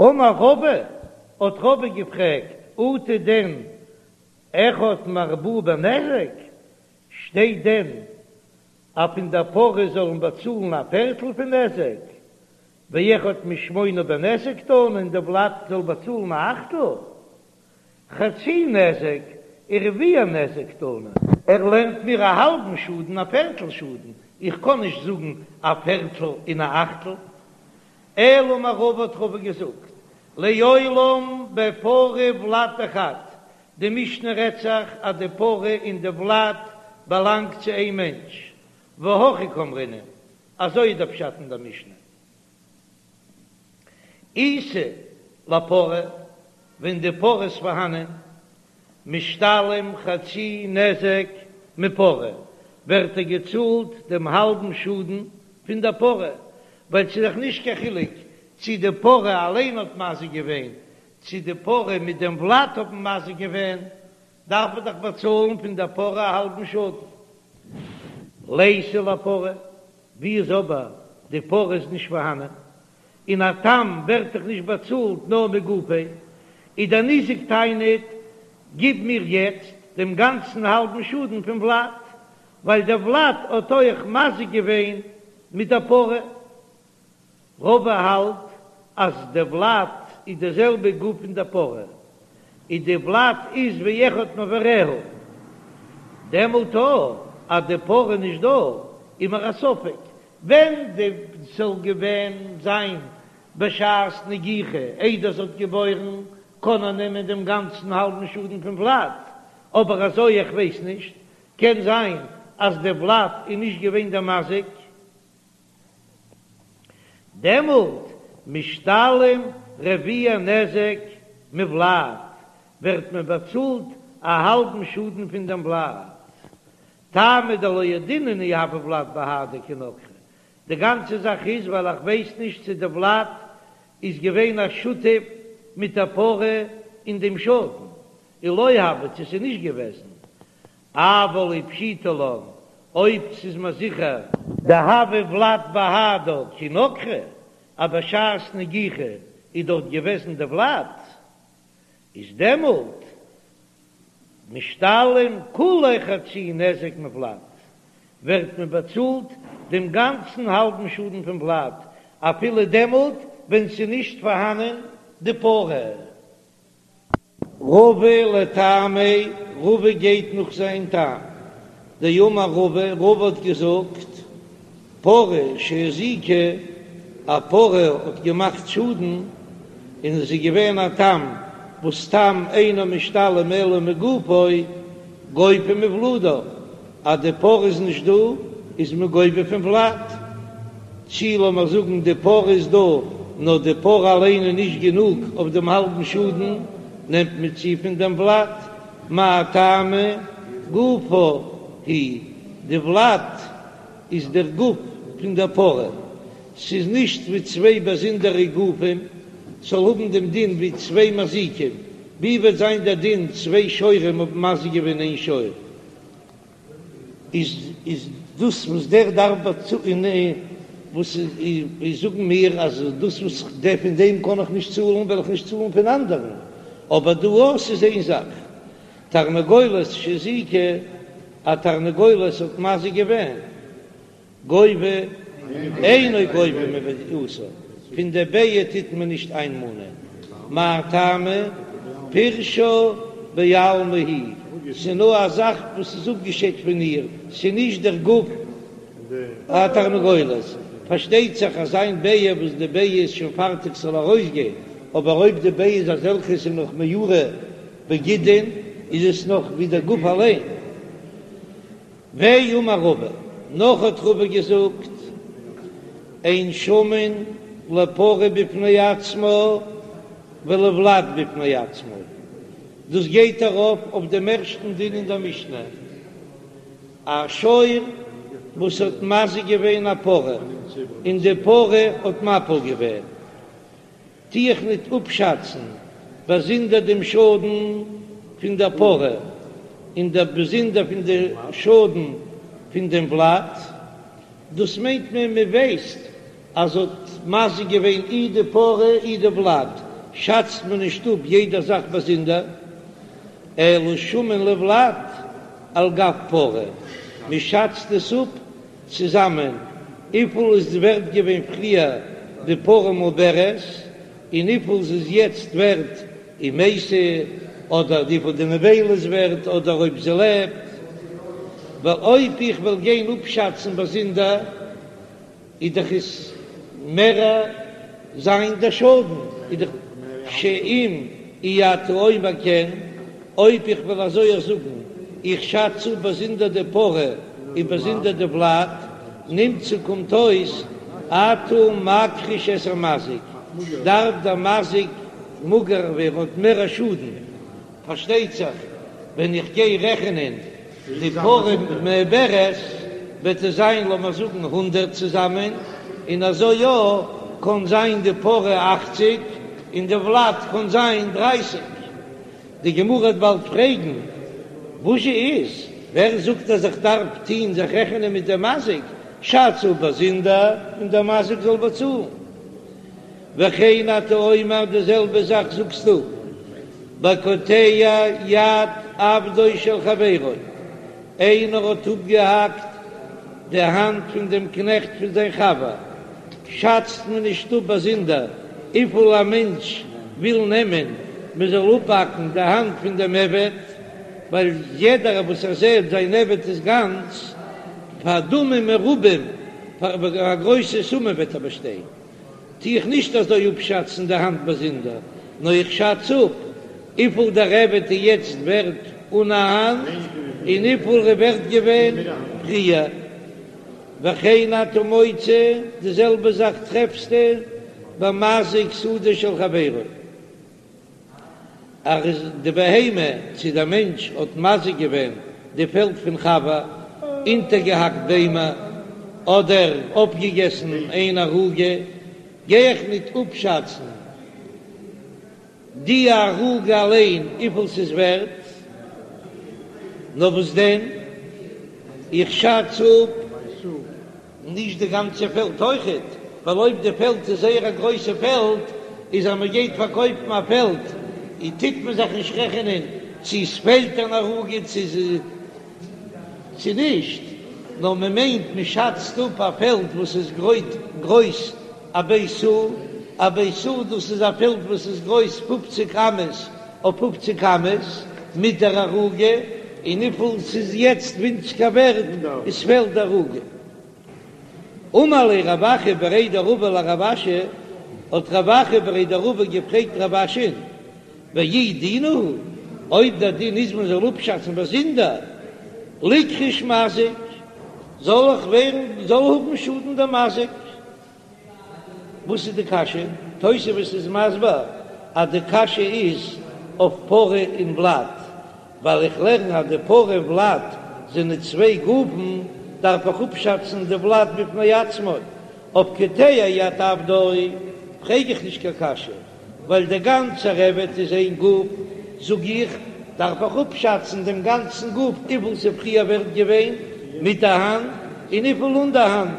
אמר רבא, האט רבא געפרעגט, אטו דען אחד מארבעה בנזק, שטייט דען אז פון דער פרה זאל מען באצאלן א פערטל פון נזק, ואחד משמונה בנזק תנא און די ולד זאל באצאלן א אכטל? חצי נזק ורביע נזק תנא. ער לערנט מיר א האלבן שאדן א פערטל שאדן, איך קען נישט זאגן א פערטל און א אכטל. אלא אמר רבא האט רבא געזאגט, לעולם בפרה וולד דחד, די משנה רעדט זיך אז די פרה און די ולד באלאנגט צו איין מענטש, והכי קאמרינן, אזוי איז דער פשט אין דער משנה. איתא לפרה, ווען די פרה איז פארהאנען, משתלם חצי נזק מפרה, ווערט ער געצאלט דעם האלבן שאדן פון דער פרה, ווייל ס'איז דאך נישט קיין חילוק צי די פרה אליין האט מזיק געווען, צי די פרה מיט דעם ולד האבן מזיק געווען, דארף מען דאך באצאלן פון דער פרה א האלבן שאדן. ליתא לפרה, ווי איז אבער די פרה איז נישט פארהאנען, און א תם ווערט דאך נישט באצאלט נאר מגופו, איז דער ניזק טענה'ט, גיב מיר יעצט דעם גאנצן האלבן שאדן פון ולד, ווייל דער ולד האט אויך מזיק געווען מיט דער פרה. רבא האלט אז די ולד איז די זעלבע גוף פון די פרה, און די ולד איז ווי אחד מאבריה, דעמאלט אויך אז די פרה איז נישט דא איז מיר א ספק ווען די זאל געווען זיין בשעת נגיחה איידער זי האט געבוירן קען ער נעמען דעם גאנצן האלבן שאדן פון ולד, אבער אזוי איך ווייס נישט, קען זיין אז די ולד איז נישט געווען דער מזיק. דעמאלט משתלם רביע נזק מולד, ווערט מען באצאלט א האלבן שאדן פון דעם ולד. טעמא דלא ידעינן אי הוה ולד בהדה כי נגחה, די גאנצע זאך איז ווייל איך ווייס נישט צו די ולד איז געווען א שותף מיט א פרה אין דעם שאדן, אי לא הוה צו ס'איז נישט געוועזן, אבל אי פשיטא לן, אויב ס'איז מיר זיכער. דהוה ולד בהדה כי נגחה, אז בשעת נגיחה איז דארט געוועזן די ולד, איז דעמאלט משתלם כוליה חצי נזק מולד, ווערט מען באצאלט דעם גאנצן האלבן שאדן פון ולד, אפילו דעמאלט ווען ס'איז נישט פארהאנען די פרה. רבא לטעמיה, רבא גייט נאך זיין טעם. דאמר רבא, רבא האט געזאגט, פרה שהזיקה, א פרה האט געמאכט שאדן, און עס איז געווען א תם, וואס תם אינו משתלם אלא מגופו, גובה מוולדה, אז די פרה איז נישט דא איז מען גובה פון ולד, צי לאמער זאגן די פרה איז דא נאר די פרה אליין איז נישט גענוג אויף דעם האלבן שאדן, נעמט מען צו פון דעם ולד, מאי טעמא גופה היא, די ולד איז דער גוף פון דער פרה, ס'איז נישט ווי צוויי באזונדערע גופים, ס'זאל האבן דעם דין ווי צוויי מזיקים, ווי וועט זיין דער דין צוויי שוורים האבן מזיק געווען איין שור? איז איז דאס וואס דער דארף באצאלן וואס איז זאגן מיר אז דאס וואס דער פון דעם קען איך נישט צאלן וועל איך נישט צאלן פון אנדערן, אבער דא אויך איז איין זאך, תרנגולת שהזיקה, א תרנגולת האט מזיק געווען. גובה אינו גובה מביעתה, פון די ביעה טוט מען נישט איינמאנען, מאי טעמא? פירשא בעלמא היא, ס'איז נאר א זאך וואס איז אפגעשיידט פון איר, ס'איז נישט דער גוף התרנגולת, פארשטייט זיך אז איין ביעה וואס די ביעה איז שוין פארטיג ס'זאל ארויסגיין, אבער אויב די ביעה איז אזעלכע ס'איז נאך מעורה בגידין איז עס נאך ווי דער גוף אליין. ואמר רבא, נאך האט רבא געזאגט, אין שמין לפרה בפני עצמה ולולד בפני עצמו, דאס גייט ארויף אויף דעם ערשטן דין אין דער משנה, א שור וואס האט מזיק געווען א פרה און די פרה האט מפיל געווען, טו איך ניט אפשאצן באזונדער דעם שאדן פון דער פרה און דער באזונדער פון די שאדן פון דעם ולד, דאס מיינט מען מען ווייסט אז האט מזיק געווען אי די פרה אי די ולד. שאצט מען נישט אפ יעדע זאך באזונדער, אלא שמין לולד על גב פרה, מען שאצט עס אפ צוזאמען וויפיל איז ווערט געווען פריער די פרה מעוברת און וויפיל זי איז יעצט ווערט אם מתה, אדער וויפיל די נבילה איז ווערט אדער אויב זי לעבט, ווייל אויב איך וועל גיין אפשאצן באזונדער איז דאך עס מער זיין דער שאדן, איז דאך שאם אי אתה אומר כן, אויב איך וועל אזוי אויך זאגן, איך שאץ אפ באזונדער די פרה און באזונדער די ולד, נמצא קומט אויס אתה מכחיש את המזיק, דארף דער מזיק מאגער ווערן האט מער א שאדן, פארשטייט זיך ווען איך גיי רעכענען די פרה מעוברת וועט עס זיין לאמער זאגן הונדרעט צוזאמען, און אזוי יא קען זיין די פרה אכציג און די ולד קען זיין דרייסיג. די גמרא וועט באלד פרעגן וואזשע איז, ווער זאגט אז איך דארף טוהן זיך רעכענען מיט דעם מזיק, שאץ אפ באזונדער און דער מזיק זאל באצאלן. וכן אתה אומר די זעלבע זאך זאגסטו בקוטע יד עבדו של חברו, איינער האט אפגעהאקט די האנט פון דעם קנעכט פון זיין חבר, שאצט מען נישט אפ באזונדער וויפיל א מענטש וויל נעמען מען זאל אפהאקן די האנט פון דעם עבד, ווייל יעדער וואס ער זעט זיין עבד איז גאנץ, פאר דמים מרובים, פאר א גרויסע סומע וועט ער באשטיין. טו איך נישט אזוי אפשאצן די האנט באזונדער, נאר איך שאץ אפ וויפיל דער עבד איז יעצט ווערט אן א האנט, און וויפיל ער איז ווערט געווען פריער. וכן אתה מוצא, די זעלבע זאך טרעפסטו במזיק שדה של חברו. אז די בהמה צו דער מענטש האט מזיק געווען די פעלד פון חבר, אונטערגעהאקט ביימער אדער אפגעגעסן איין ערוגה, גיי איך ניט אפשאצן די ערוגה אליין וויפיל ס'איז ווערט, נאר וואס דען, איך שאץ אפ. נישט די גאנצע פעלד אויכעט, ווייל אויב די פעלד איז זייער א גרויסע פעלד, איז אז מען גייט פארקויפן א פעלד, איז טוט מען זיך נישט רעכענען צו עס פעלט אן ערוגה צו צו נישט, נאר מען מיינט מען שאצט אפ א פעלד וואס איז גרויס א בית סאה, א בית סאה דאס איז א פעלד וואס איז גרויס פופציג אמות אויף פופציג אמות מיט דער ערוגה, און וויפיל ס'איז יעצט ווינציגער ווערט איז פעלט די ערוגה. אמר ליה רב אחא בריה דרבא לרב אשי, האט רב אחא בריה דרבא געפרעגט רב אשי'ן, ואי דינא הוא, אויב דער דין איז מען זאל אפשאצן באזונדער, ליכחוש מזיק, זאל איך ווערן זאל האבן שאדן דער מזיק. וואס איז די קשיא? תוספות איז מסביר אז די קשיא איז אויף פרה און ולד, ווייל איך לערן אז די פרה און ולד זענען צוויי גופן, דארף איך אפשאצן די ולד בפני עצמו. אויף קוטע יד עבדו פרעג איך נישט קיין קשיא, ווייל דער גאנצער עבד איז איין גוף, זאג איך, דארף איך אפשאצן דעם גאנצן גוף וויפיל ס'איז פריער ווערט געווען מיט די האנט און וויפיל אן די האנט,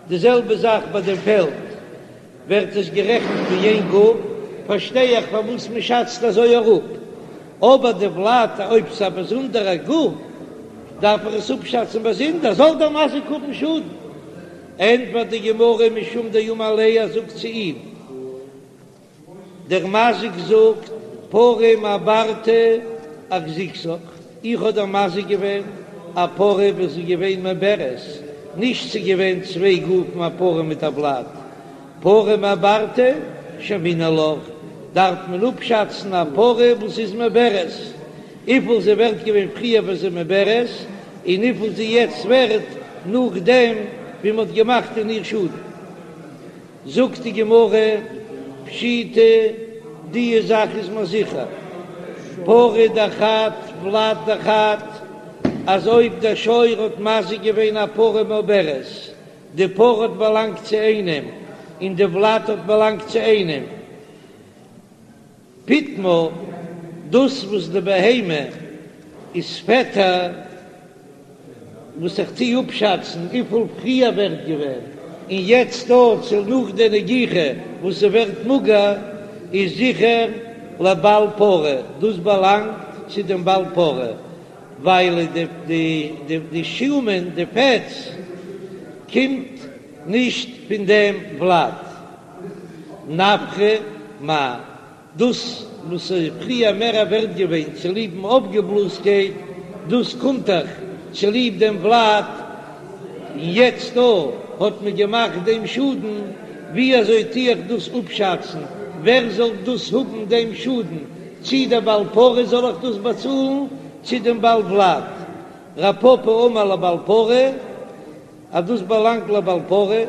די זעלבע זאך ביי דעם פעלד, ווערט עס גערעכנט ווי איין גוף, פארשטיי איך פארוואס מען שאצט אזוי אראפ, אבער די ולד אויב ס'איז א באזונדערע גוף דארף איך עס אפשאצן באזונדער, זאל דער מזיק האבן שאדן. ענטפערט די גמרא משום דאמר ליה, ער זאגט צו אים, דער מזיק זאגט, פרה מעברתא אחזיקתיך, איך האב דיר מזיק געווען א פרה וואס איז געווען מעוברת, נישט ס'איז געווען צוויי גופים א פרה מיט א ולד, פרה מעברתא שיימינן לך, דארף מען אפשאצן א פרה וואס איז מעוברת, וויפיל זי ווערט געווען פריער ווען זי מעוברת, און וויפיל זי יעצט ווערט נאכדעם ווי מ'האט געמאכט אין איר שאדן. זאגט די גמרא, פשיטא, די זאך איז מיר זיכער, פרה דחד ולד דחד, אז אויב דער שור האט מזיק געווען א פרה מעוברת, די פרה האט באלאנגט צו איינעם און די ולד האט באלאנגט צו איינעם, פיטמה, דאס וואס די בהמה איז פעטער, וואס איך טוה אפשאצן וויפיל פריער ווערט געווען, און יעצט דא צו נאך די נגיחה וואס ס'ווערט מאגער. איז זיכער לבעל פרה, דאס באלאנגט צו דעם בעל פרה, ווייל די שומן, די פעטס, קומט נישט פון דעם ולד. נפחא מאי? דאס וואס איז פריער מער ווערט געווען צוליב'ן אויפגעבלאזקייט, דאס קומט דאך צוליב דעם ולד, און יעצט דא האט מען געמאכט דעם שאדן, ווי אזוי טו איך דאס אפשאצן, ווער זאל דאס האבן דעם שאדן, צי דער בעל פרה זאל איך דאס באצאלן, צי דעם בעל ולד? רב פפא אמר לבעל פרה. אז דאס באלאנגט לבעל פרה,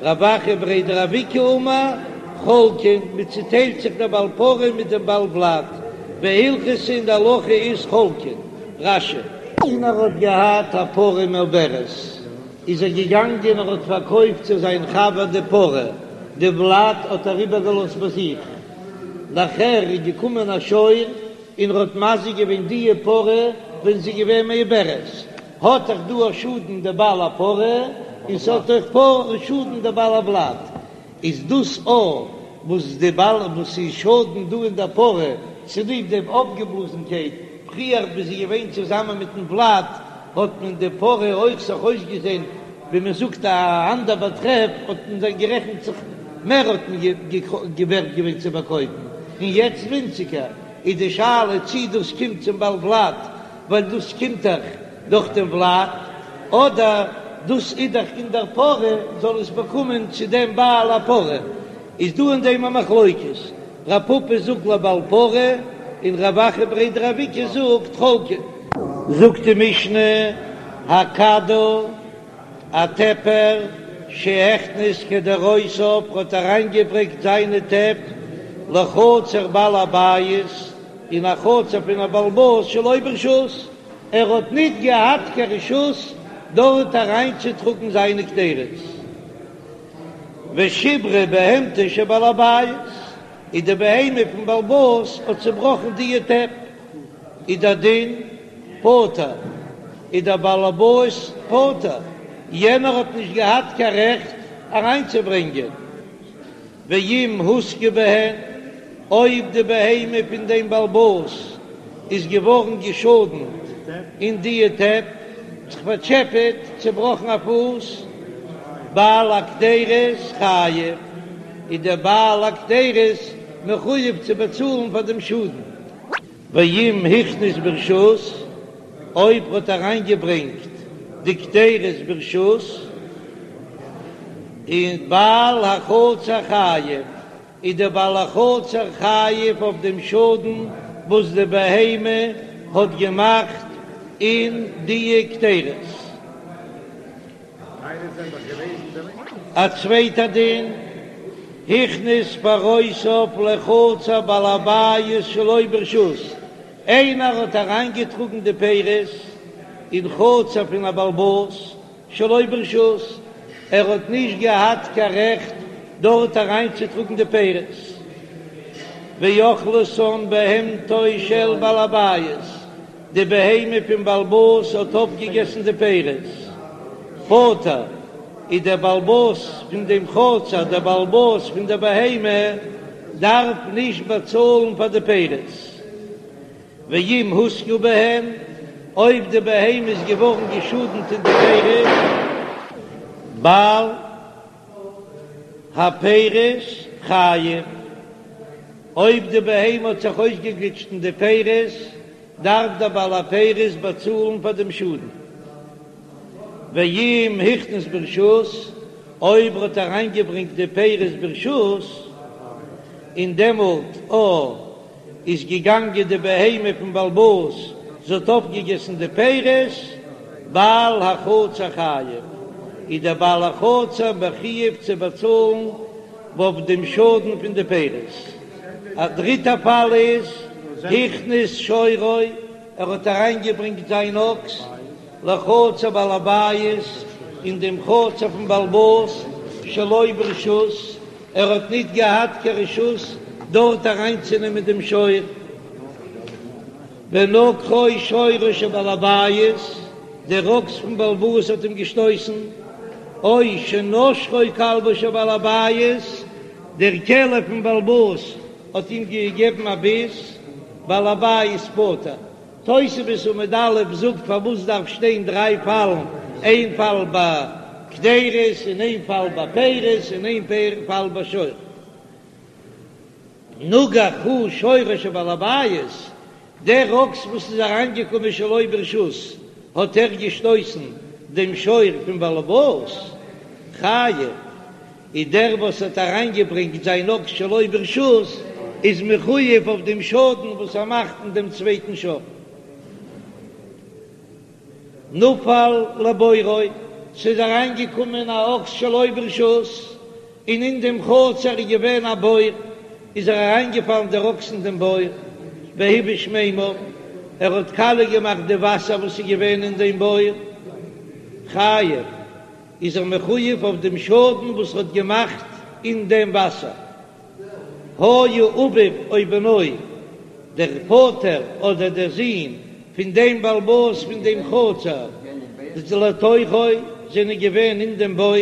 רב אחא בריה דרב איקא אמר חולקין, מען צוטיילט זיך דער בעל פרה מיט דעם בעל ולד, והלכתא און די הלכה איז חולקין. רש"י. איינער האט געהאט א פרה מעוברת, איז ער געגאנגען ער האט פארקויפט צו זיין חבר די פרה, די ולד האט ער איבערגעלאזט ביי זיך, נאכער איז געקומען א שור און ער האט מזיק געווען די פרה ווען זי איז געווען מעוברת, האט דאך דא א שאדן די בעל הפרה, און ס'האט אויך א שאדן די בעל הוולד, איז דאס א וואס די בעל וואס איז שאדן דא אין די פרה צוליב דעם אויפגעבלאזנקייט, פריער ווי זי געווען צוזאמען מיטן ולד האט מען די פרה אויך זיך אויסגעזען ווי מען זאגט א אנדער באטרעף האט מען זיך גערעכנט זיך מער האט מען ווערט געווען צו פארקויפן און יעצט ווינציגער, איז די שאלה צי דאס קומט צום בעל ולד ווייל דאס קומט דאך דורך דעם ולד, אדער דאס איז דאך אין דער פרה, זאל עס באקומען צו דעם בעל הפרה, איז דא אין דעם א מחלוקת, רב פפא זאגט לבעל פרה, און רב אחא בריה דרב איקא זאגט חולקין. זאגט די משנה, הקדר, א טעפער, שהכניס קדרותיו, האט אריינגעברענגט זיינע טעפ לחצר בעל הבית, אין א חצר פון א בעל הבית שלא ברשות, ער האט ניט געהאט קיין רשות דארט אריינצוטראגן זיינע קדרות. ושיברה בהמתו של בעל הבית, און די בהמה פון בעל הבית האט צעבראכן דיע טעפ, איז דער דין פטור, איז דער בעל הבית פטור, יענער האט נישט געהאט קיין רעכט אריינצוברענגען. ואם הוזקה בהן, אויב די בהמה פון דעם בעל הבית איז געווארן געשאדנט אין דיע טעפ, זיך פארטשעפעט, צעבראכן א פוס, בעל הקדרות חייב, איז דער בעל הקדרות מחויב צו באצאלן פאר דעם שאדן. ואם הכניס ברשות, אויב האט אריינגעברענגט די קדרות ברשות, איז בעל החצר חייב, איז דער בעל החצר חייב אויף דעם שאדן וואס די בהמה האט געמאכט אין די קדרות. א צווייטע דין, הכניס פירותיו לחצר בעל הבית שלא ברשות, איינער האט אריינגעטראגן די פירות אין חצר פון א בעל הבית שלא ברשות, ער האט נישט געהאט קיין רעכט דארט אריינצוטראגן די פירות, ואכלתן בהמתו של בעל הבית, די בהמה פון בעל הבית האט אויפגעגעסן די פירות, פטור, איז דער בעל הבית פון דעם חצר, דער בעל הבית פון דער בהמה, דארף נישט באצאלן פאר די פירות. ואם הוזקה בהן, אויב די בהמה איז געווארן געשאדנט אין די פירות, בעל הפירות חייב, אויב די בהמה האט זיך אויסגעגליטשט אין די פירות, דארף דער בעל הפירות באצאלן פאר דעם שאדן. ואם הכניס ברשות, אויב ער האט אריינגעברענגט די פירות ברשות, און דעמאלט א איז געגאנגען די בהמה פון בעל הבית, זי האט אויפגעגעסן די פירות, בעל החצר חייב, איז דער בעל החצר מחויב צו באצאלן אויף דעם שאדן פון די פירות. א דריטע פאל איז, הכניס שורו, ער האט אריינגעברענגט זיין אקס לחצר בעל הבית, אין דעם חצר פון בעל הבית, שלא ברשות, ער האט ניט געהאט קיין רשות דארט אריינצונעמען דעם שור, ונגחו שורו של בעל הבית, דער אקס פון בעל הבית האט אים געשטויסן, או שנשכו כלבו של בעל הבית. דער כלב פון בעל הבית האט אים געגעבן א ביס, בעל הבית פטור. תוספות עמוד א' זאגט פארוואס דארף שטיין דריי פאלן, איין פאל ביי קדירות און איין פאל ביי פירות און איין פאל ביי שור. נגח הוא שורו של בעל הבית, דער אקס וואס איז אריינגעקומען שלא ברשות האט ער געשטויסן דעם שור פון בעל הבית, חייב, איז דער וואס האט אריינגעברענגט זיין אקס שלא ברשות איז מחויב אויף דעם שאדן וואס ער מאכט אין דעם צווייטן שור. נפל לבורו, ס'איז אריינגעקומען א אקס שלא ברשות, און אין דעם חצר איז געווען א בור, איז ער אריינגעפאלן דער אקס אין דעם בור, והבאיש מימיו, ער האט קאליע געמאכט די וואסער וואס איז געווען אין דעם בור, חייב, איז ער מחויב אויף דעם שאדן וואס ער האט געמאכט אין דעם וואסער. היה אביו או בנו, דער פאטער אדער דער זון פון דעם בעל הבית פון דעם חצר, לתוכו, זענען געווען אין דעם בור,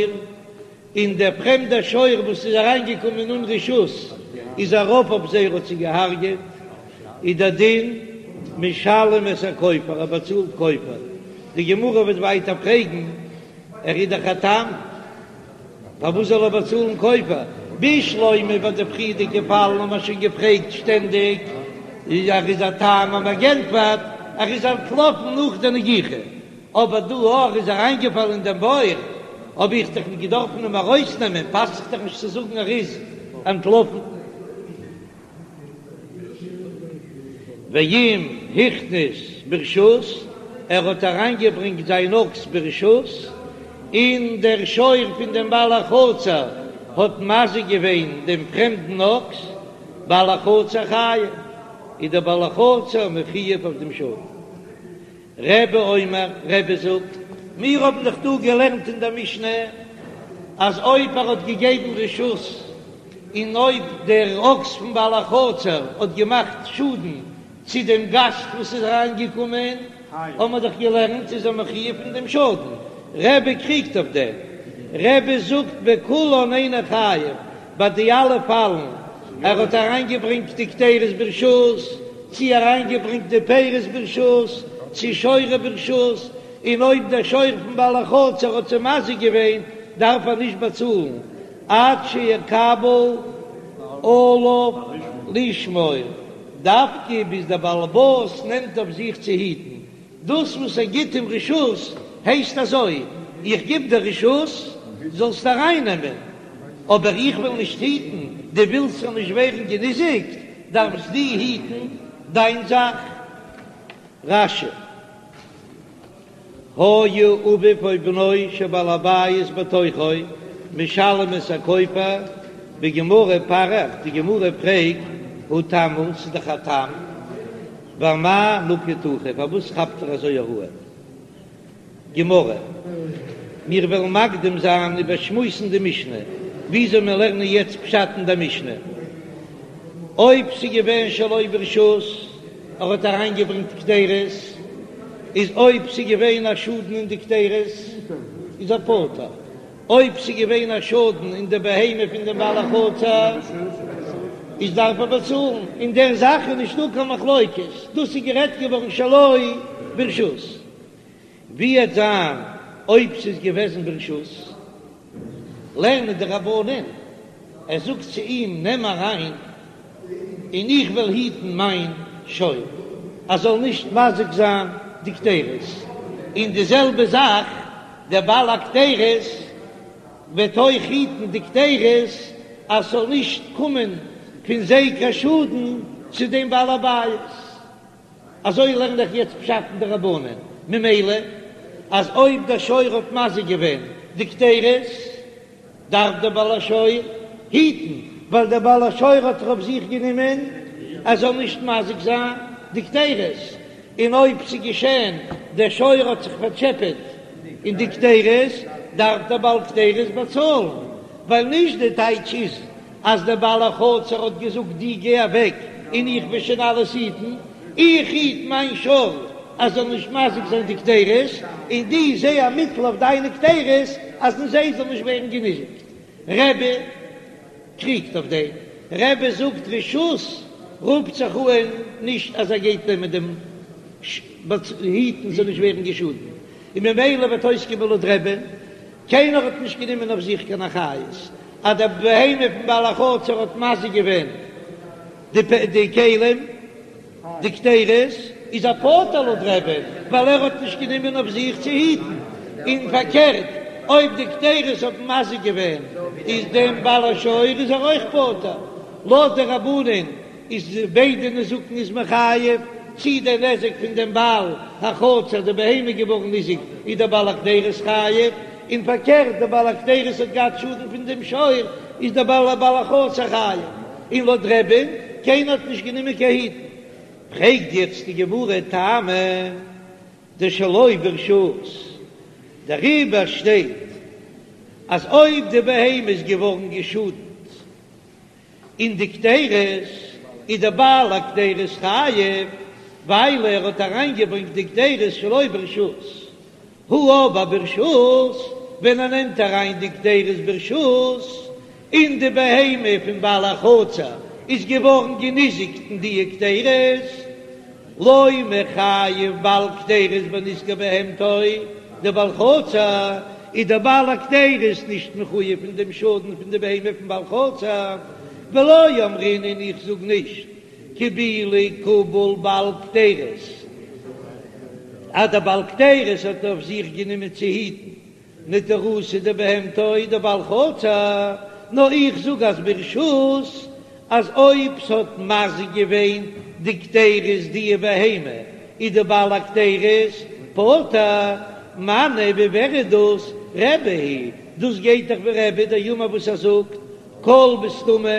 און דער פרעמדער שור וואס איז אריינגעקומען אן רשות איז ארויף אויף זיי און האט זיי געהארגעט, איז דער דין משלם את הכופר, ער באצאלט כופר. די גמרא וועט ווייטער פרעגן, ער איז דאך א תם. פארוואס זאל ער באצאלן כופר? בשלמא ביי די פריערדיגע פאלן האט מען שוין געפרעגט שטענדיג, ער איז א תם האט מען געענטפערט, ער איז אנטלאפן נאך די נגיחה, אבער דא ער איז אריינגעפאלן אין דעם בור, האב איך דאך נישט געדארפן אים ארויסנעמען, פאסט זיך דאך נישט צו זאגן ער איז אנטלאפן. ואם הכניס ברשות, ער האט אריינגעברענגט זיין אקס ברשות, און דער שור פון דעם בעל החצר האט מזיק געווען דעם פרעמדן אקס, בעל החצר חייב, איז דער בעל החצר מחויב אויף דעם שור. רבי אומר, רבי זאגט, מיר האבן דאך דא געלערנט אין דער משנה אז אויב ער האט געגעבן רשות און אויב דער אקס פון בעל החצר האט געמאכט שאדן צו דעם גאסט וואס איז אריינגעקומען, האבן מיר דאך געלערנט איז ער מחויב פון דעם שאדן. רבי קריגט אויף דעם, רבי זאגט בכולן אינו חייב, ביי די אלע פאלן, ער האט אריינגעברענגט די קדירות ברשות, צי אריינגעברענגט די פירות ברשות, צי שורו ברשות, און אויב דער שור פון בעל החצר האט זיי מזיק געווען, דארף ער נישט באצאלן עד שיקבל עליו לשמור, דווקא ביז דער בעל הבית נעמט אויף זיך צו היטן, דאס וואס ער גיט אים רשות הייסט אזוי, איך גיב דיר רשות זאלסט ארייננעמען, אבער איך וועל נישט היטן, דו ווילסט ס'זאל נישט ווערן געניזיקט, דארפסט דו היטן דיין זאך. רש"י, היה אביו או בנו של בעל הבית בתוכו משלם את הכופר, בגמרא פריך, די גמרא פרעגט, הא תם הוא, ס'איז דאך א תם, ואמאי נקיט הכי, פארוואס כאפט ער אזוי הוראה? גמרא, מיר וועלן מקדים זיין איבערשמועסן די משנה, וויאזוי מיר לערנען יעצט פשט אין די משנה. אויב ס'איז געווען שלא ברשות, ער האט אריינגעברענגט קדירות, איז אויב ס'איז געווען א שאדן אין די קדירות, איז ער פטור. אויב ס'איז געווען א שאדן אין די בהמה פון דעם בעל החצר, איז דארף ער באצאלן. אין דער זאך איז נישטא קיין מחלוקת, דאס איז גערעדט געווארן שלא ברשות. ווי וועט זיין אויב ס'איז געוועזן ברשות? לערנען די רבנן, ער זאגט צו אים נעם אריין און איך וועל היטן מיין שור אז זאל נישט מזיק זיין די קדירות, און די זעלבע זאך דער בעל הקדירות וועט אויך היטן די קדירות אז ס'זאל נישט קומען פון זיי קיין שאדן צו דעם בעל הבית. אזוי לערן איך יעצט פשט אין די רבנן, ממילא אז אויב דער שור האט מזיק געווען די קדירות, דארף דער בעל השור היטן, ווייל דער בעל השור האט אויף זיך גענומען אז זאל נישט מזיק זיין די קדירות, און אויב ס'איז געשען דער שור האט זיך פארטשעפעט אין די קדירות, דארף דער בעל קדירות באצאלן, ווייל נישט די טייטש איז אז דער בעל החצר האט געזאגט דו גיי אוועק און איך וועל שוין אלעס היטן, איך היט מיין שור אז זאל נישט מזיק זיין די קדירות, און דו זע א מיטל אויף דיינע קדירות אז אין זיי זאל נישט ווערן געניזיקט. רבי. קריגט אויף דעם, רבי זאגט רשות רופט זיך אהן נישט אז ער גייט נעמען דעם היטן זאל נישט ווערן געשאדן, און ממילא וועט אויסקומען לויט רבי'ן, קיינער האט נישט גענומען אויף זיך קיין אחריות אז די בהמה פון בעל החצר האט מזיק געווען די כלים. די קדרות איז ער פטור לויט רבי'ן ווייל ער האט נישט גענומען אויף זיך צו היטן, און פארקערט אויב די קדרות האבן מזיק געווען איז דעם בעל השור איז ער אויך פטור, לויט די רבנן איז ביידע נזקין איז מען חייב, צי דער נזק פון דעם בעל החצר די בהמה געווארן ניזוק איז דער בעל הקדרות חייב, און פארקערט דער בעל הקדרות האט געהאט שאדן פון דעם שור איז דער בעל בעל החצר חייב. און לויט רבי'ן, קיינער האט נישט גענומען קיין היטן. פרעגט יעצט די גמרא טעמא דשלא ברשות, דעריבער שטייט אז אויב די בהמה איז געווארן געשאדנט אין די קדרות איז דער בעל הקדרות חייב ווייל ער האט אריינגעברענגט די קדרות שלא ברשות, הא אבער ברשות, ווען ער נעמט אריין די קדרות ברשות, און די בהמה פון בעל החצר איז געווארן געניזיקט אין די קדרות, לא מיחייב בעל קדרות בנזקי בהמתו, דבעל חצר איז דער בעל הקדרות נישט מחויב פון דעם שאדן פון די בהמה פון בעל חצר, ולא אמרינן און איך זאג נישט קיבולי קביל בעל קדרות, אז דער בעל קדרות האט אויף זיך גענומען צו היטן נטירותא דבהמתו דבעל חצר, נאר איך זאג אז ברשות אז אויב ס'האט מזיק געווען די קדרות די בהמה איז די בעל הקדרות פטור, מני ווי ווער איז דאס רבי היא דאס גייט דאך ווי רבי דאמר וואס ער זאגט כל בסתמא,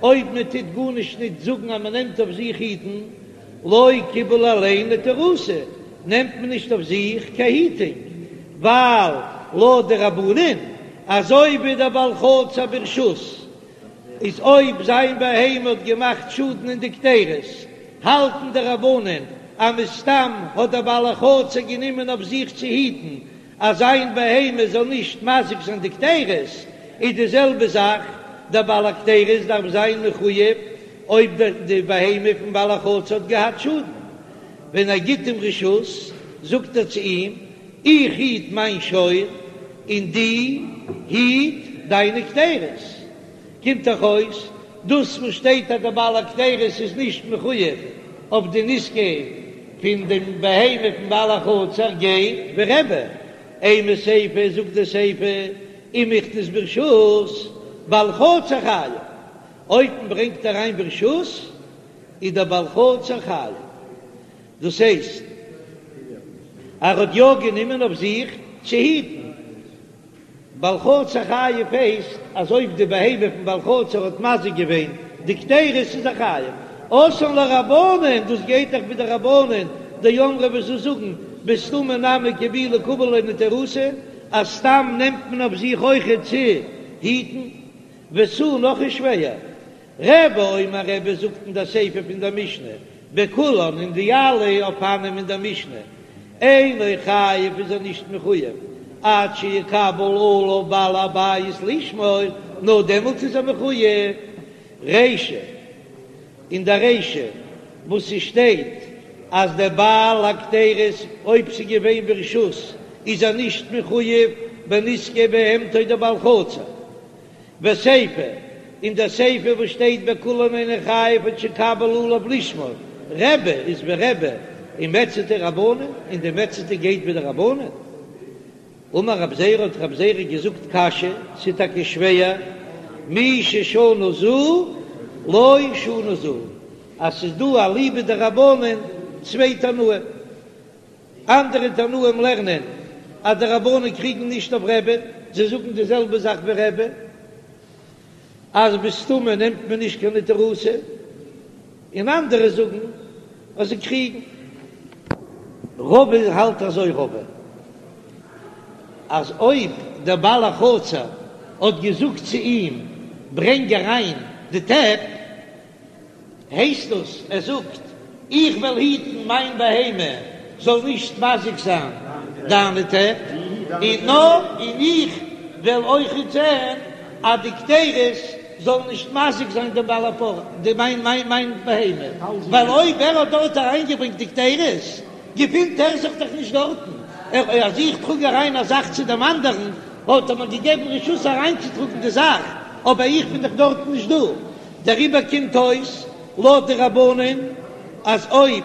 אויב מען טוט גארנישט ניט זאגן אז מען נעמט אויף זיך היטן, לא קיבל עליה נטירותא, נעמט מען נישט אויף זיך קיין היטונג, ווייל לויט די רבנן, אזוי ווי דער בעל חצר ברשות איז אויב זיין בהמה האט געמאכט שאדן אין די קדרות, האלטן די רבנן אז מסתם האט דער בעל החצר גענומען אויף זיך צו היטן אז זיין בהמה זאל נישט מזיק זיין די קדרות, איז די זעלבע זאך, דער בעל הקדרות דארף זיין מחויב אויב די בהמה פון בעל החצר האט געהאט שאדן. ווען ער גיט אים רשות, זאגט ער צו אים, איך היט מיין שור און דו היט דיינע קדרות. קומט דאך אויס, דאס וואס שטייט אז דער בעל הקדרות איז נישט מחויב אויף די נזקי פון דעם בהמה פון בעל החצר גייט ווי רבי, אימא סיפא זאגט די סיפא אם הכניס ברשות בעל חצר חייב, אויב מען ברענגט אריין ברשות איז דער בעל חצר חייב, דאס הייסט ער האט יא גענומען אויף זיך צו היטן. בעל חצר חייב הייסט אז אויב די בהמה פון בעל חצר האט מזיק געווען די קדרות איז ער חייב. אתאן לרבנן, דאס גייט דאך ווי די רבנן דאמרי וואס זיי זאגן בסתמא נמי קיבולי קביל עליה נטירותא אז סתם נעמט מען אויף זיך אויכעט צו היטן. ותו נאך איז שווער. רבי אומר רבי זאגט אין דער סיפא פון דער משנה, בכולן אין די אלע אופנים אין דער משנה, אינו חייב איז ער נישט מחויב עד שיקבל עליו בעל הבית לשמור, נאר דעמאלטס איז ער מחויב. רישא, אין דער רישא וואס ס'שטייט אז דער בעל הקדרות אויב ס'איז געווען ברשות איז ער נישט מחויב בנזקי בהמתו דבעל חצר, וסיפא, אין דער סיפא וואס שטייט בכולן אינו חייב עד שיקבל עליו לשמור, רבי איז ווי רבי, ומציעתא רבנן, און די מציעתא גייט ווי די רבנן. אמר רב זירא האט רב זירא געזאגט קשיא, ס'איז טאקע שווער, מי ששנה זו לא שנה זו, אז ס'איז דא אליבא דרבנן צוויי תנאים. אנדערע תנאים לערנען אז די רבנן קריגן נישט אויף רבי'ן, זיי זאגן די זעלבע זאך ווי רבי, אז בסתמא נעמט מען נישט קיין נטירותא, און אנדערע זאגן אז זיי קריגן. רבא האלט אזוי רבא אז אויב דער בעל החצר האט געזאגט צו אים ברענג אריין די טעפ, הייסט דאס ער זאגט איך וועל היטן מיין בהמה זאל נישט מזיק זיין דיינע טעפ, און נאר און איך וועל אויכעט זען אז די קדרות. זאל נישט מזיק זיין דעם בעל הפרה, די מיין מיין מיין בהמה, ווייל אויב ער האט דארט אריינגעברענגט די קדירות, געפינט ער זיך דאך נישט דארטן, ער אז איך טראג אריין א זאך צו דעם אנדערן, האט ער מיר געגעבן רשות אריינצוטראגן די זאך, אבער איך בין דאך דארטן נישט דא, דעריבער קומט אויס לויט די רבנן אז אויב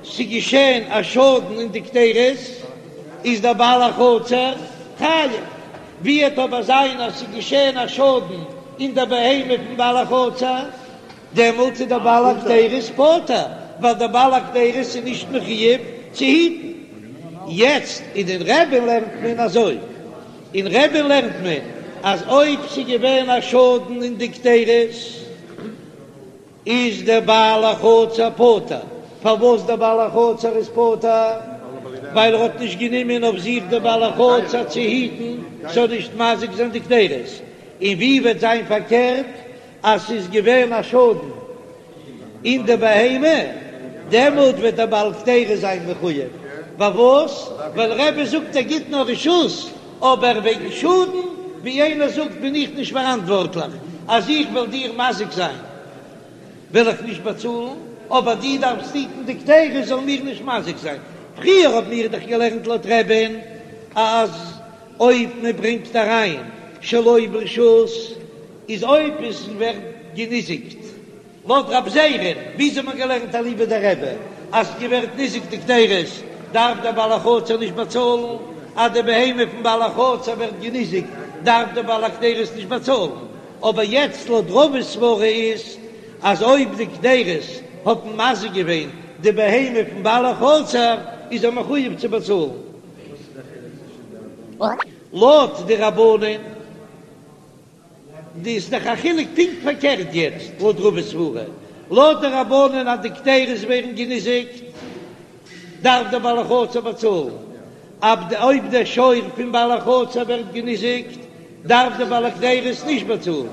ס'געשען א שאדן אין די קדירות איז דער בעל החצר חייב. ווי וועט אבער זיין אז ס'איז געשען א שאדן אין דער בהמה פון בעל החצר, דעמאלט איז דער בעל הקדירות פטור, ווייל דער בעל הקדירות איז נישט מחויב צו היטן. יעצט אין אין רבי'ן לערנט מען אזוי, אין רבי'ן לערנט מען אז אויב ס'איז געווען א שאדן אין די קדירות, איז דער בעל החצר פטור. פארוואס דער בעל החצר איז פטור? ווייל ער האט נישט גענומען אויף זיך דער בעל החצר צו היטן ס'זאל נישט מזיק זיין די קדירות. און ווי וועט זיין פארקערט אז ס'איז געווען א שאדן אין די בהמה, דעמאלט וועט דער בעל קדירות זיין מחויב. פארוואס? ווייל רבי זאגט ער גיט נאר רשות, אבער וועגן שאדן, ווי איינער זאגט בין איך נישט פאראנטווארטליך, אז איך וועל דיר מזיק זיין וועל איך נישט באצאלן, אבער דו דארפסט היטן די קדירות זאל מיר נישט מזיק זיין. פריער האבן מיר דאך געלערנט לויט רבי'ן אז אויב מען ברענגט אריין שלא ברשות איז אויב עס ווערט געניזיקט לויט רב זירא'ן, וויאזוי האט מען געלערנט אליבא דרבי אז ס'ווערט ניזוק די קדירות דארף דער בעל החצר נישט באצאלן, אז די בהמה פון בעל החצר ווערט געניזיקט דארף דער בעל הקדירות נישט באצאלן, אבער יעצט לויט רבא'ס סברא איז אז אויב די קדירות האט מזיק געווען די בהמה פון בעל החצר איז ער מחויב צו באצאלן. לויט די רבנן. די איז דאך א חילוק פונקט פארקערט יעצט לויט רבא'ס סברא, לויט די רבנן אז די קדירות ווערן געניזיקט דארף דער בעל החצר באצאלן, אויב דער שור פון בעל החצר ווערט געניזיקט דארף דער בעל הקדירות נישט באצאלן,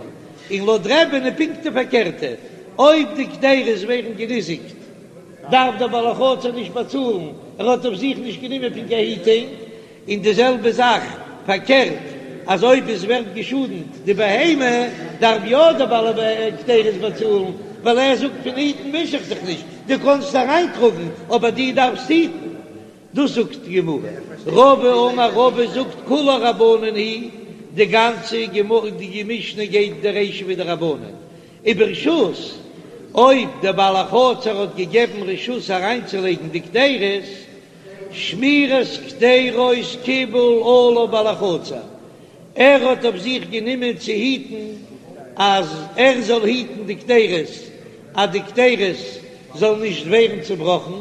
און לויט רבי'ן איז פונקט די פארקערטע, אויב די קדירות ווערן געניזיקט דארף דער בעל החצר נישט באצאלן, ער האט אויף זיך נישט גענומען פון קיין היטונג. און די זעלבע זאך פארקערט, אז אויב עס ווערט געשאדנט די בהמה, דארף יא דער בעל הקדירות באצאלן, ווייל ער זאגט פון היטן מיש איך זיך נישט, דו קענסט אריינטראגן, אבער דו דארפסט היטן. דאס זאגט די גמרא. רבא אמר רבא זאגט כולה רבנן היא, די גאנצע גמרא די משנה גייט די רישא ווי די רבנן, וברשות, אויב דער בעל החצר האט געגעבן רשות אריינצולייגן די קדירות, שמירת קדירות קיבל עליו בעל החצר, ער האט אויף זיך גענומען צו היטן אז ער זאל היטן די קדירות אז די קדירות זאלן נישט ווערן צובראכן,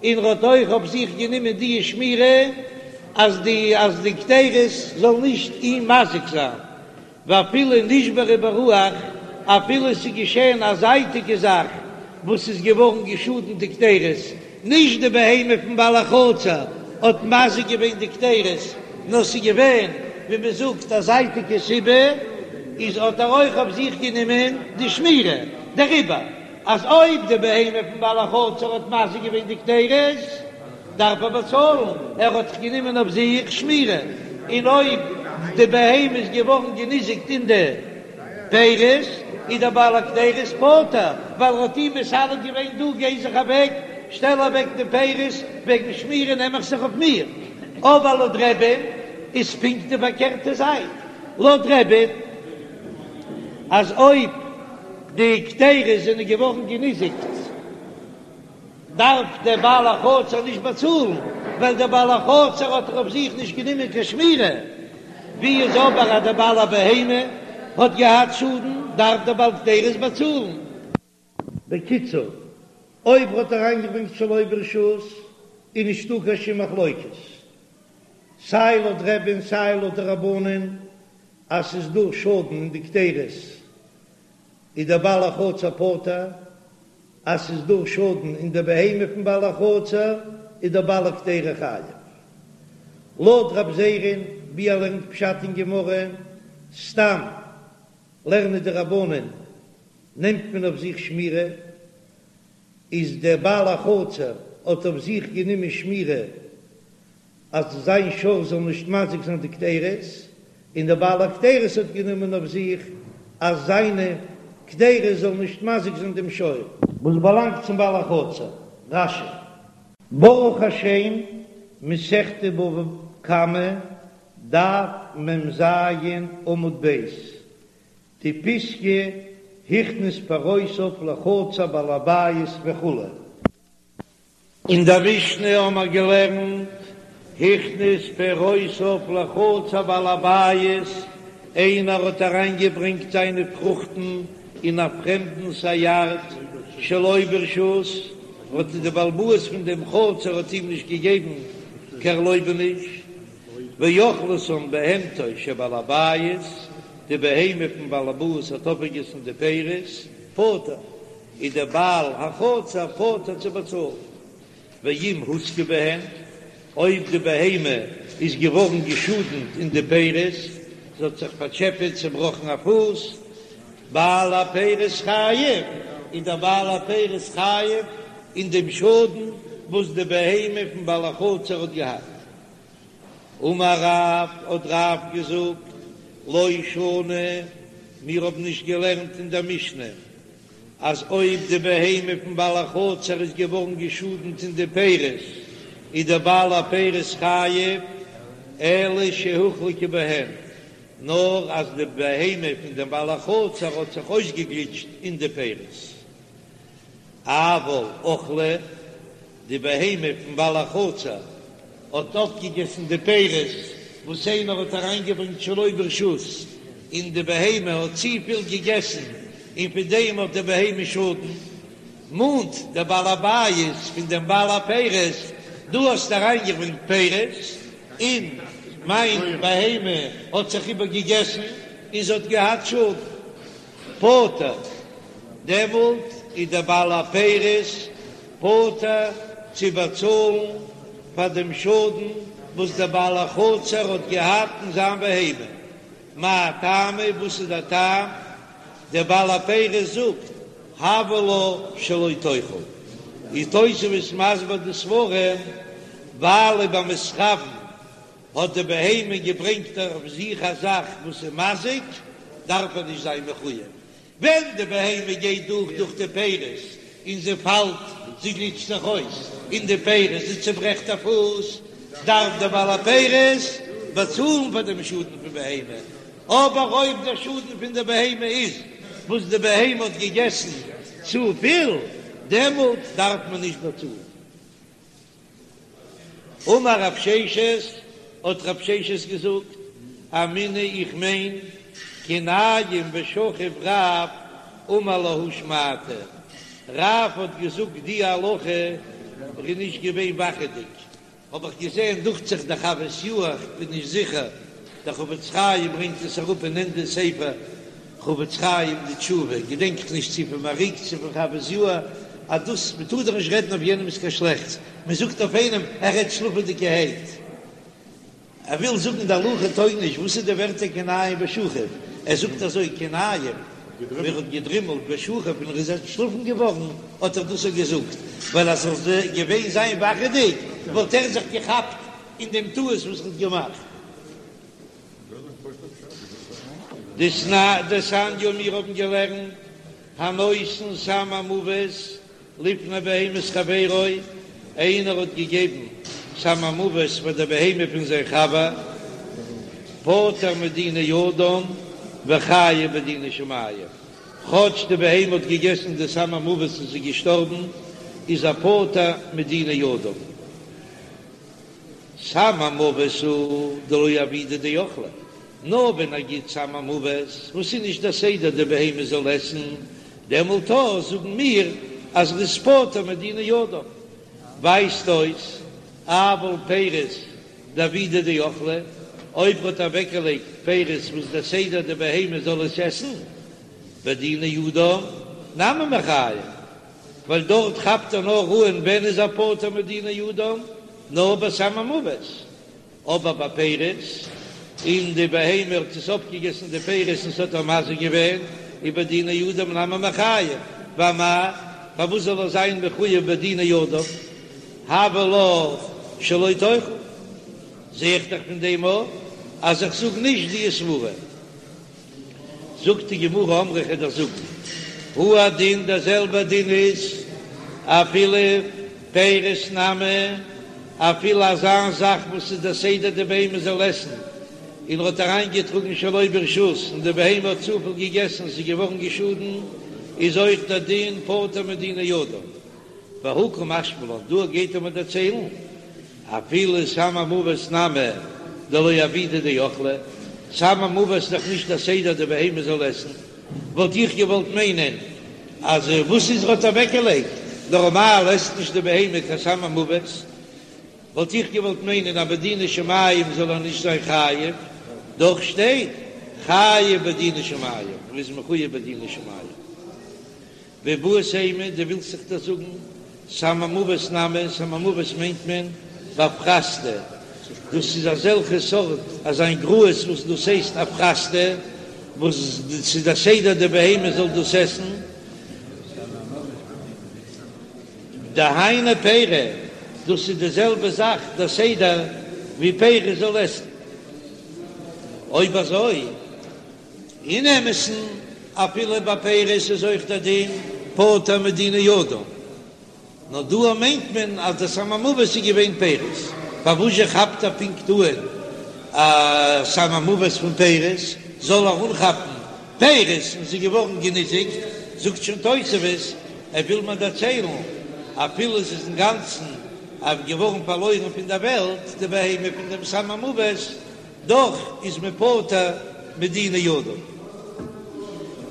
און ער האט אויך אויף זיך גענומען די שמירה אז די אז די קדירות זאלן נישט אים מזיק זיין. ואפילו נשברה ברוח, אפילו עס איז געשען א זייטיגע זאך וואס איז געווארן געשאדנט די קדירות, נישט די בהמה פון בעל החצר האט מזיק געווען די קדירות, נאר ס'איז געווען ווי מען זאגט א זייטיגע סיבה, איז האט ער אויך אויף זיך גענומען די שמירה דעריבער, אז אויב די בהמה פון בעל החצר האט מזיק געווען די קדירות, דארף ער באצאלן, ער האט זיך גענומען אויף זיך שמירה, און אויב די בהמה איז געווארן געניזיקט אין די פירות, איז דער בעל הקדירות פטור, ווייל ער האט אים מסלק געווען, דו גיי זיך אוועק, שטעל אוועק די פירות, וועגן שמירה נעם איך זיך אויף מיר. אבער לויט רבי'ן איז פונקט די פארקערטע זייט, לויט רבי'ן אז אויב די קדירות זענען געווארן געניזיקט, דארף דער בעל החצר נישט באצאלן, ווייל דער בעל החצר האט דאך אויף זיך נישט גענומען קיין שמירה. ווי איז אבער אז דער בעל הבהמה האט געהאט שאדן, דארף דער בעל קדירות באצאלן. בקיצור, אויב האט ער אריינגעברענגט שלא ברשות, איז נישטא קיין שום מחלוקת, סיי לויט רבי'ן סיי לויט די רבנן, אז ס'איז דא שאדן אין די קדירות, איז דער בעל החצר פטור, אז ס'איז דא שאדן אין די בהמה פון בעל החצר איז דער בעל הקדירה חייב. לויט רב זירא'ן ווי ער לערנט פשט אין גמרא, סתם לערנען די רבנן נעמט מען אויף זיך שמירה, איז דער בעל החצר האט אויף זיך גענומען שמירה אז זיין שור זאל נישט מזיק זיין די קדירות, און דער בעל הקדירות האט גענומען אויף זיך אז זיינע. קדירה זאל נישט מזיק זיין דעם שור. וואס באלאנגט צום בעל החצר. רש"י. ברוך השם, מסכת בבא קמא, דף מ"ז עמוד ב', די פיסקא הכניס פירותיו לחצר בעל הבית וכו'. אין דער משנה האמער געלערנט, הכניס פירותיו לחצר בעל הבית, איינער האט אריינגעברענגט זיינע פרוכטן אין א פרעמדנס א יארד שלא ברשות, האט די בעל הבית פון דעם חצר האט אים נישט געגעבן קיין ערלויבעניש, ואכלתן בהמתו של בעל הבית, די בהמה פון בעל הבית האט אויפגעגעסן די פירות, פטור, איז דער בעל החצר פטור צו באצאלן. ואם הוזקה בהן, אויב די בהמה איז געווארן געשאדנט אין די פירות, זי האט זיך פארטשעפעט, צעבראכן א פוס, בעל הפירות חייב, איז דער בעל הפירות חייב אין דעם שאדן וואס די בהמה פון בעל החצר האט געהאט. אמר רב, האט רב געזאגט, לא שנו, מיר האבן נישט געלערנט אין דער משנה, אז אויב די בהמה פון בעל החצר איז געווארן געשאדנט אין די פירות, איז דער בעל הפירות חייב, אלא שהוחלקה בהן, נאר אז די בהמה פון דעם בעל החצר האט זיך אויסגעגליטשט אין די פירות. אבל אכלה, די בהמה פון בעל החצר האט אויפגעגעסן די פירות וואס איינער האט אריינגעברענגט שלא ברשות, און די בהמה האט צופיל געגעסן און פון דעם האט די בהמה שאדן, מאנט דער בעל הבית פון דעם בעל הפירות, דו האסט אריינגעברענגט פירות און מיין בהמה האט זיך איבערגעגעסן און זי האט געהאט שאדן. פטור, דעמאלט איז דער בעל הפירות פטור צו באצאלן פאר דעם שאדן וואס דער בעל החצר האט געהאט אין זיין בהמה. מאי טעמא, וואס איז דער טעם? דער בעל הפירות זאגט, הוה לה שלא תאכל. איז תוספות מסביר די סברא, ווייל במתכוין האט די בהמה געברענגט אויף זיך א זאך וואס איז מזיק, דארף ער נישט זיין מחויב. ווען די בהמה גייט דורך דורך די פירות און זי פאלט, זי גליטשט זיך אויס אין די פירות, זי צוברעכט א פוס, דארף דער בעל הפירות באצאלן פאר דעם שאדן פון בהמה. אבער אויב דער שאדן פון די בהמה איז וואס די בהמה האט געגעסן צופיל, דעמאלט דארף מען נישט באצאלן. אמר רב ששת, האט רב ששת געזאגט, אמינא איך מיין, כי ניים ושכיב רב אמר להא שמעתא, רב האט געזאגט די הלכה, ער איז נישט געווען וואכעדיג, האב איך געזען, דוכט זיך דער חוות יאיר, איך בין נישט זיכער, דער חפץ חיים ברענגט עס אראפ אין ענדע ספר חפץ חיים די תשובה, געדענק איך נישט צו פון מהרי"ק צו פון חוות יאיר, אז דאס מען טאר דאך נישט רעדן אויף יענעמס קיין שלעכטס, מען זאגט אויף איינעם ער רעדט שלאפעדיגערהייט, ער וויל זאגן די הלכה טויג נישט, וואס איז די ווערטער כי ניים ושכיב, ער זאגט אזוי כי ניים ווען ער האט געדרימלט ושכיב און ער איז אנטשלאפן געווארן האט ער דאס געזאגט, ווייל אז ער זאל געווען זיין וואכעדיג וואלט ער זיך געכאפט אין דעם טעות וואס ער האט געמאכט. דתניא מיר האבן געלערנט הנותן סם המוות לפני בהמת חברו, איינער האט געגעבן סם המוות פאר די בהמה פון זיין חבר, פטור מדיני אדם וחייב בדיני שמים, כאטש די בהמה האט געגעסן די סם המוות און ס'איז געשטארבן, איז ער פטור מדיני אדם. סם המוות הוא דלא עבידא דאכלה, נאר ווען ער גיט סם המוות וואס איז נישט דער סדר די בהמה זאל עסן, דעמאלט אויך זאגן מיר אז ר'איז פטור מדיני אדם. ווייזט אויס אבל פירות דעבידא דאכלה, אויב ר'האט אוועקגעלייגט פירות וואס דער סדר די בהמה זאל עס עסן, בדיני אדם נמי מיחייב. ווייל דארט כאפט ער נאר אן ווען איז ער פטור מדיני אדם, נאר ביי סם המוות, אבער ביי פירות, און די בהמה האט עס אויפגעגעסן די פירות און ס'האט איר מזיק געווען, איז בדיני אדם נמי מיחייב, ואמאי, פארוואס זאל ער זיין מחויב בדיני אדם, הוה לה שלא תאכל, זע איך דאך פון דעם אויך אז איך זאג נישט די סברה. זאגט די גמרא אמרי כ'וועל דיר זאגן, הוא הדין דער זעלבער דין איז אפילו פירות נמי, אפילו אזא זאך וואס איז דער סדר די בהמה זאל עסן, און ער האט אריינגעטראגן שלא ברשות און די בהמה האט צופיל געגעסן און ס'איז געווארן געשאדן, איז אויך דער דין פטור מדיני אדם. והא קא משמע לן, דא גייט ער מיר דערציילן, אפילו סם המוות נמי דלא עבידא דאכלה, סם המוות איז דאך נישט דער סדר די בהמה זאל עסן, וואלט איך געוואלט מיינען אז וואס איז ער האט אוועקגעלייגט, נארמאל עסט נישט די בהמה קיין סם המוות, וואלט איך געוואלט מיינען אז בדיני שמים זאל ער נישט זיין חייב, דאך שטייט חייב בדיני שמים, ער איז מחויב בדיני שמים. ואיבעית אימא, דו ווילסט זיך דאס זאגן, סם המוות נמי, סם המוות מיינט מען באפרסתא, דאס איז אזעלכע סארט אזיין גראז וואס דאס הייסט אפרסתא, וואס ס'איז דער סדר די בהמה זאל דאס עסן, דהיינו פירי, דאס איז די זעלבע זאך דער סדר ווי פירות זאל עסן. אויב אזוי. אין אמת'ן, אפילו ביי פירות איז אויך דער דין פטור מדיני אדם, נאר דא מיינט מען אז דער סם המוות איז געווען פירות, פארוואס זשע כאפט ער פונקט אן א סם המוות פון פירות, זאל ער אנכאפן פירות און ס'איז געווארן געניזיקט, זאגט שוין תוספות, ער וויל מיר דערציילן, אפילו עס איז אינגאנצן געווארן פארלוירן פון דער וועלט די בהמה פון דעם סם המוות, דאך איז מען פטור מדיני אדם.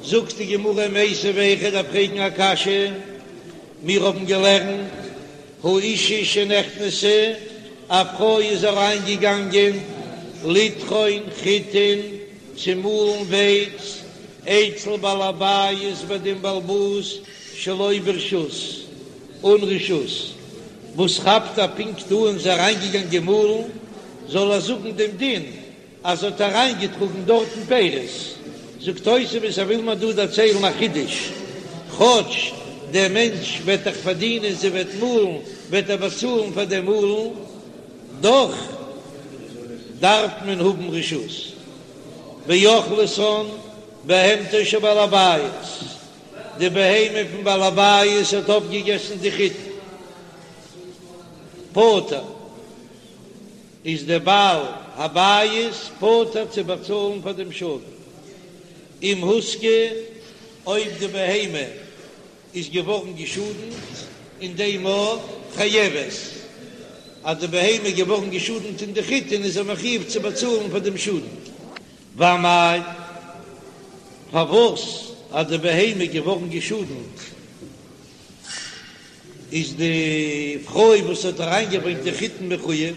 זאגט די גמרא מיתיבי איך דארף פרעגן א קשיא, מיר האבן געלערנט האשה שנכנסה, א פרוי איז אריין געגאנגען לטחון חיטין צו מאלן ווייץ אצל בעל הבית ביי דעם בעל הבית שלא ברשות, אן רשות, וואס כאפט ער פונקט אן זי אריינגעגאנגען מאלן, זאל ער זאגן דעם דין אז זי האט אריינגעטראגן דארטן פירות. זאגט תוספות ער וויל מיר דא דערציילן א חידוש, כאטש דער מענטש וועט דאך פארדינען זי וועט מאלן וועט ער באצאלן פאר דעם מאלן, דאך דארף מען האבן רשות. ואכלתן בהמתו של בעל הבית. די בהמה פון בעל הבית האט אויפגעגעסן די חיטה, פטור איז דער בעל הבית פטור צו באצאלן פאר דעם שאדן, אם הוזקה, אויב די בהמה איז געווארן געשאדנט אין דעם מאל, חייבת, אז די בהמה איז געווארן געשאדנט אין די חיטין איז ער מחויב צו באצאלן פאר דעם שאדן. ואמאי, פארוואס אז די בהמה איז געווארן געשאדנט איז די פרוי וואס האט אריינגעברענגט די חיטין מחויב?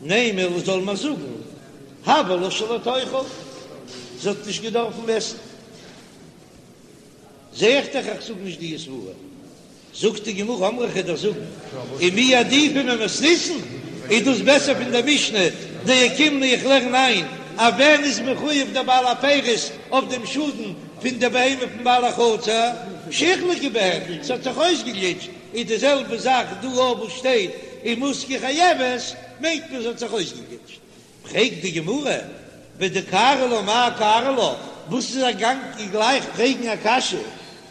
נימא זאל מען זאגן הוה לה שלא תאכל, זי האט נישט געדארפן עסן. זע איך דאך איך זאג נישט די סברה. זאגט די גמרא אמרי כ'וועל דיר זאגן, ומי עדיפא ממתניתין, איז דאס בעסער פון דער משנה, דאוקימנא איך לערן איין אז ווען איז מחויב דער בעל הפירות אויף דעם שאדן פון די בהמה פון בעל החצר, שהוחלקה בהן, ס'האט זיך אויסגעגליטשט, איז די זעלבע זאך דא אויך וואס שטייט אם הוזקה חייבת, מיינט מען ס'האט זיך אויסגעגליטשט. פרעגט די גמרא, ודקארי לה מאי קארי לה, וואס איז ער געגאנגען גלייך פרעגן א קשיא,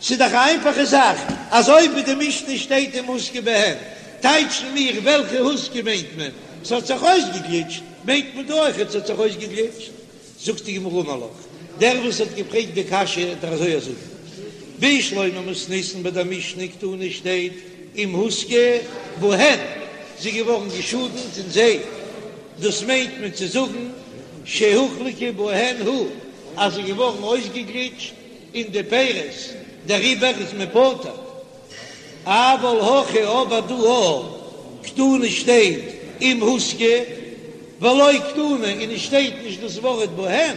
ס'איז דאך א איינפאכע זאך, אז אויב אין די משנה שטייט אם הוזקה בהן, טייטשן מיר וועלכע הוזקה מיינט מען, ס'האט זיך אויסגעגליטשט, מיינט מען דא אויכעט ס'האט זיך אויסגעגליטשט. זאגט די גמרא אמר לך, דער וואס האט געפרעגט די קשיא וועט דיר אזוי זאגן, בשלמא מתניתין ביי דער משנה קתני שטייט אם הוזקה בהן, זי איז געווארן געשאדנט אין זיי, דאס מיינט מען צו זאגן שהוחלקה בהן הוא, אז זי איז געווארן אויסגעגליטשט אין די פירות, דעריבער איז מען פטור. אבל הכא אבער דא א קתני שטייט אם הוזקה ולא קתני און עס שטייט נישט דאס ווארט בהן,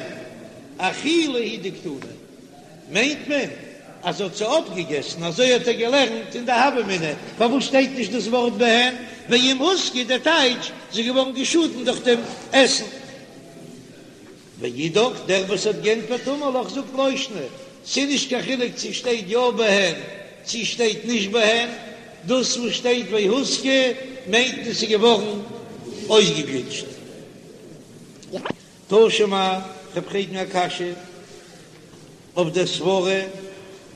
אכילה הוא דקתני מיינט מען אז זי האט זיי אויפגעגעסן, אזוי האט ער געלערנט אין די הוה אמינא, פארוואס שטייט נישט דאס ווארט בהן, ואם הוזקה דער טייטש זי איז געווארן געשאדן דורך דעם עסן. ואידך, דער וואס האט גענטפערט אמר לך זאגט לא שנא, ס'איז נישט קיין חילוק צו שטייט יא בהן צו שטייט נישט בהן, דאס וואס שטייט והוזקה מיינט עס איז געווארן אויסגעגליטשט. תא שמע, כ'וועל פרעגן א קשיא. אויף דער סברה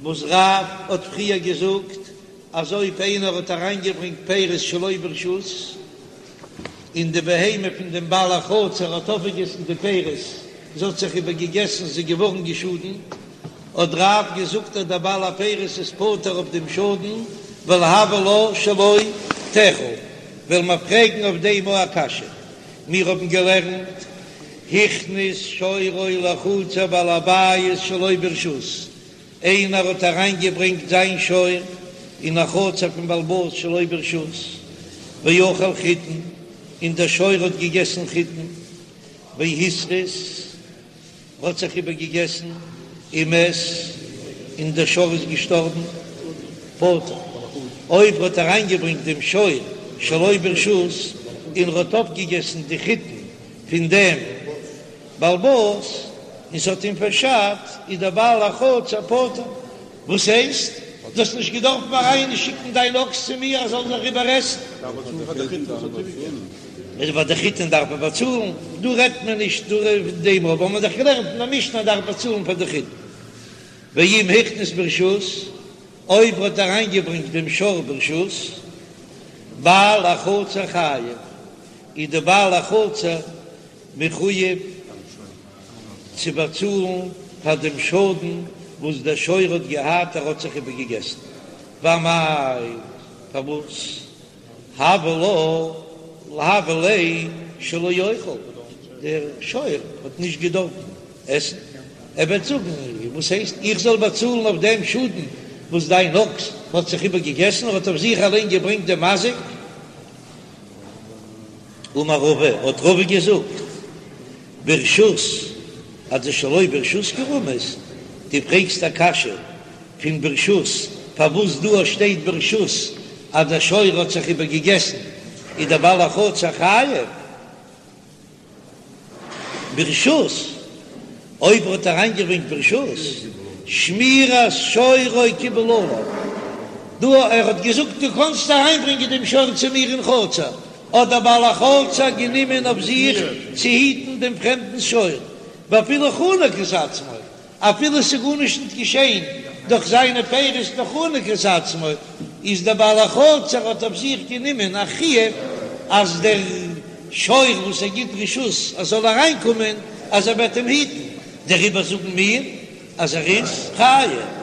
וואס רב האט פריער געזאגט אז אויב איינער האט אריינגעברענגט פירות שלא ברשות און די בהמה פון דעם בעל החצר האט אויפגעגעסן די פירות, זי האט זיך איבערגעגעסן, זי איז געווארן געשאדנט, האט רב געזאגט אז דער בעל הפירות איז פטור אויף דעם שאדן, ווייל הוה לה שלא תאכל. וועלן מיר פרעגן אויף דעם א קשיא. מיר האבן געלערנט, הכניס שורו לחצר בעל הבית שלא ברשות, איינער האט אריינגעברענגט זיין שור אין א חצר פון בעל הבית שלא ברשות, ואכל חיטין, און דער שור האט געגעסן חיטין, והתריס, האט זיך איבערגעגעסן, ומת, און דער שור איז געשטארבן, פטור. אויב ער האט אריינגעברענגט דעם שור שלא ברשות און ער האט אויפגעגעסן די חיטין פון דעם בעל הבית און ס'האט אים פארשאדט, איז דער בעל החצר פטור. וואס הייסט? דו האסט נישט געדארפט אריינשיקן דיין אקס צו מיר ער זאל זיך איבערעסן? פאר די חיטין דארף מען באצאלן, דא רעדט מען נישט דא פון דעם, אבער מ'האט דאך געלערנט אין א משנה אז דארף באצאלן פאר די חיטין. ואם הכניס ברשות, אויב ער האט אריינגעברענגט דעם שור ברשות, בעל החצר חייב, איז די בעל החצר מחויב צו באצאלן פאר דעם שאדן וואס דער שור האט געהאט, ער האט זיך איבערגעגעסן. ואמאי, פארוואס? הוה לה הוה ליה שלא יאכל, דער שור האט נישט געדארפן עסן, ער וועט זאגן, וואס הייסט איך זאל באצאלן אויף דעם שאדן וואס דיין אקס האט זיך איבערגעגעסן, ער האט אויף זיך אליין געברענגט דעם מזיק. אמר רבא, האט רבא געזאגט, ברשות אדשלא ברשות קרמית, דו פרעגסט א קשיא פון ברשות, פארוואס דא שטייט ברשות אז דער שור האט זיך איבערגעגעסן איז דער בעל החצר חייב? ברשות, אויב ער האט אריינגעברענגט ברשות, שמירת שורו קיבל עליו, דא ער האט געזאגט דו קאנסט אריינברענגען דעם שור צו מיר אין חצר, האט דער בעל החצר גענומען אויף זיך צו היטן דעם פרעמדנס שור, ואפילו חנק את עצמו, אפילו ס'איז גארנישט ניט געשען דורך זיינע פירות נאר חנק את עצמו, איז דער בעל החצר האט אויף זיך גענומען א חיוב אז דער שור וואס ער גיט רשות אז זאל אריינקומען אז ער וועט אים היטן, דעריבער זאגן מיר אז ער איז חייב.